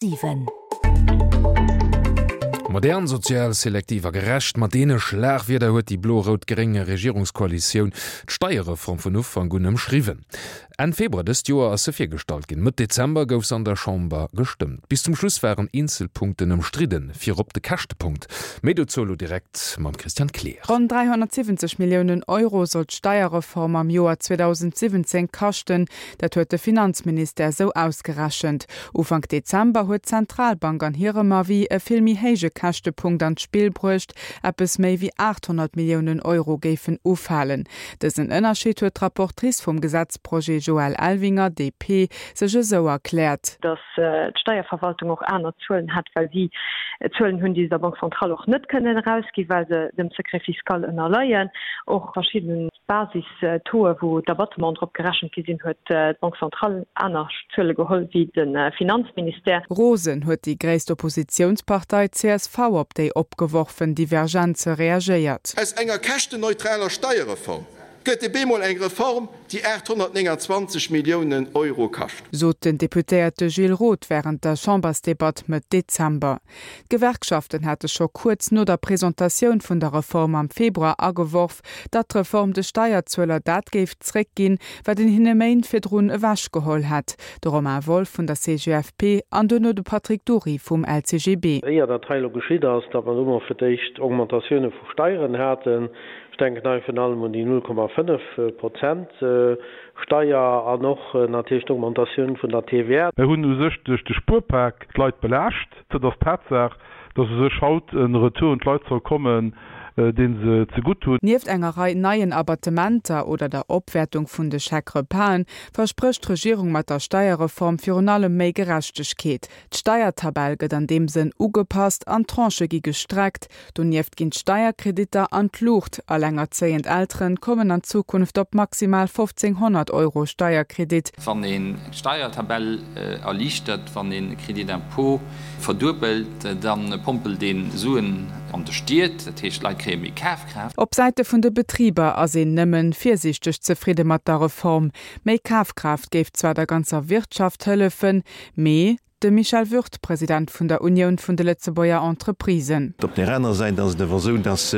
7. Modern, sozial, selektiv a gerecht, mat deene Schlagwierder huet déi blo-rout-gréng Regierungskoalitioun d'Steierreform vun Ufank un ëmschriwwen. Enn Februar dëst Joer ass se virgestallt ginn, Mëtt Dezember gouf se an der Chamber gestëmmt. Bis zum Schluss waren eenzel Punkten ëmstridden, virop de Käschtepunkt. Méi dozou elo direkt mam Christian Kleer. Ronn 370 Milliounen Euro soll d'Steierreform am Joer 2017 kaschten. Dat huet de Finanzministère sou ausgerechent. Ufank Dezember huet d'Zentralbank an hirem Avis e vill méi héije Käschtepunkt an d'Spill bruecht, eppes méi wéi 800 Milliounen Euro géifen ufalen. Dësen Ënnerscheed huet d'Rapportrice vum Gesetzprojet Joëlle Elvinger, DP, sech esou erkläert. Datt d'Steierverwaltung och aner Zuelen hätt, well si Zuelen hunn, déi se der Banque centrale och net kënnen erausginn, well se dem Secret fiscal ënnerleien. Och verschidden Basis-Tauxe, wou d'Abattementen drop gerechent gi sinn, huet d'Banque centrale aner Zuele geholl wéi de Finanzministère. Rosen huet déi gréisst Oppositiounspartei csv op déi opgeworfen Divergenze reagéiert. Aus enger käschtenneutraler Steierreform gëtt e bemol eng Reform, déi 829 Milliounen Euro kascht. Sot den Deputéierte Gilles Roth wärend der Chambersdebatt Mëtt Dezember. D'Gewerkschaften hate scho kuerz no der Presentatioun vun der Reform am Februar ageworf, datt d'Reform de Steierzueler dat géif zréckginn, wat een hinne Méint virdrun ewechgeholl hätt. De Romain Wolff vun der CGFP an duerno de Patrick Dury vum LCGB. Éier dat hei elo geschitt ass, datt mer elo mol fir d'éischt Augmentatioune vu Steieren haten, ech denken hei virun allem un déi 0,5 Prozent Steier an och natierlech d'Augmentatioun vun der TVA. Mir hunn u sech duerch de Spuerpak d'Leit belaascht. Et ass d'Tatsaach, dass u sech haut e Retour un d'Leit soll kommen, dee se zegutt hunn. Nieft enger Rei neien Abattementer oder der Opwäertung vun de Chèque-repasen versprécht d'Regierung mat der Steierreform virun allem méi Gerechtegkeet. D'Steiertabell gëtt an deem Sënn ugepasst an d'Tranchë gi gestreckt. Donieft ginn d'Steierkreditter an d'Luucht. Allengerzéiend Elteren kommen an Zukunft op maximal 1.500 Euro Steierkredit. Wann een d'Steiertabell erliichtert, wann een Crédit d'impôt verduebelt, da pompelt een Suen an de Stied, dat heescht d'Leit kréie méi Kafkraaft. Op Säite vun de Betriber ass een nëmmen virsiichteg zefridde mat der Reform. Méi Kafkraaft géif zwar der ganzer Wirtschaft hëllefen, mee De Michel Würth, President vun der Unioun vun de Lëtzebuerger Entreprisen. Op där aner Säit ass et awer esou, dass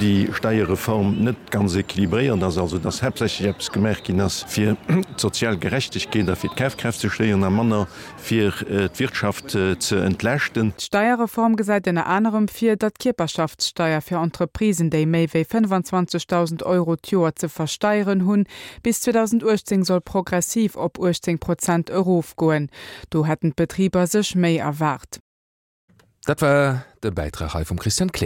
déi Steierreform net ganz équilibréiert ass, also dass haaptsächlech eppes gemaach ginn ass, fir d'sozial Gerechtegkeet a fir d'Kafkraaft ze stéieren a manner fir d'Wirtschaft ze entlaaschten. D'Steierreform gesäit ënner anerem vir, datt d'Kierperschaftssteier fir Entreprisen, déi méi wéi 25.000 Euro d'Joer ze versteieren hunn, bis 2018 soll progressiv op 18 Prozent erofgoen. Do hätten d'Betriber sech méi erwaart. Dat war de Bäitrag hei vum Christian Kleer.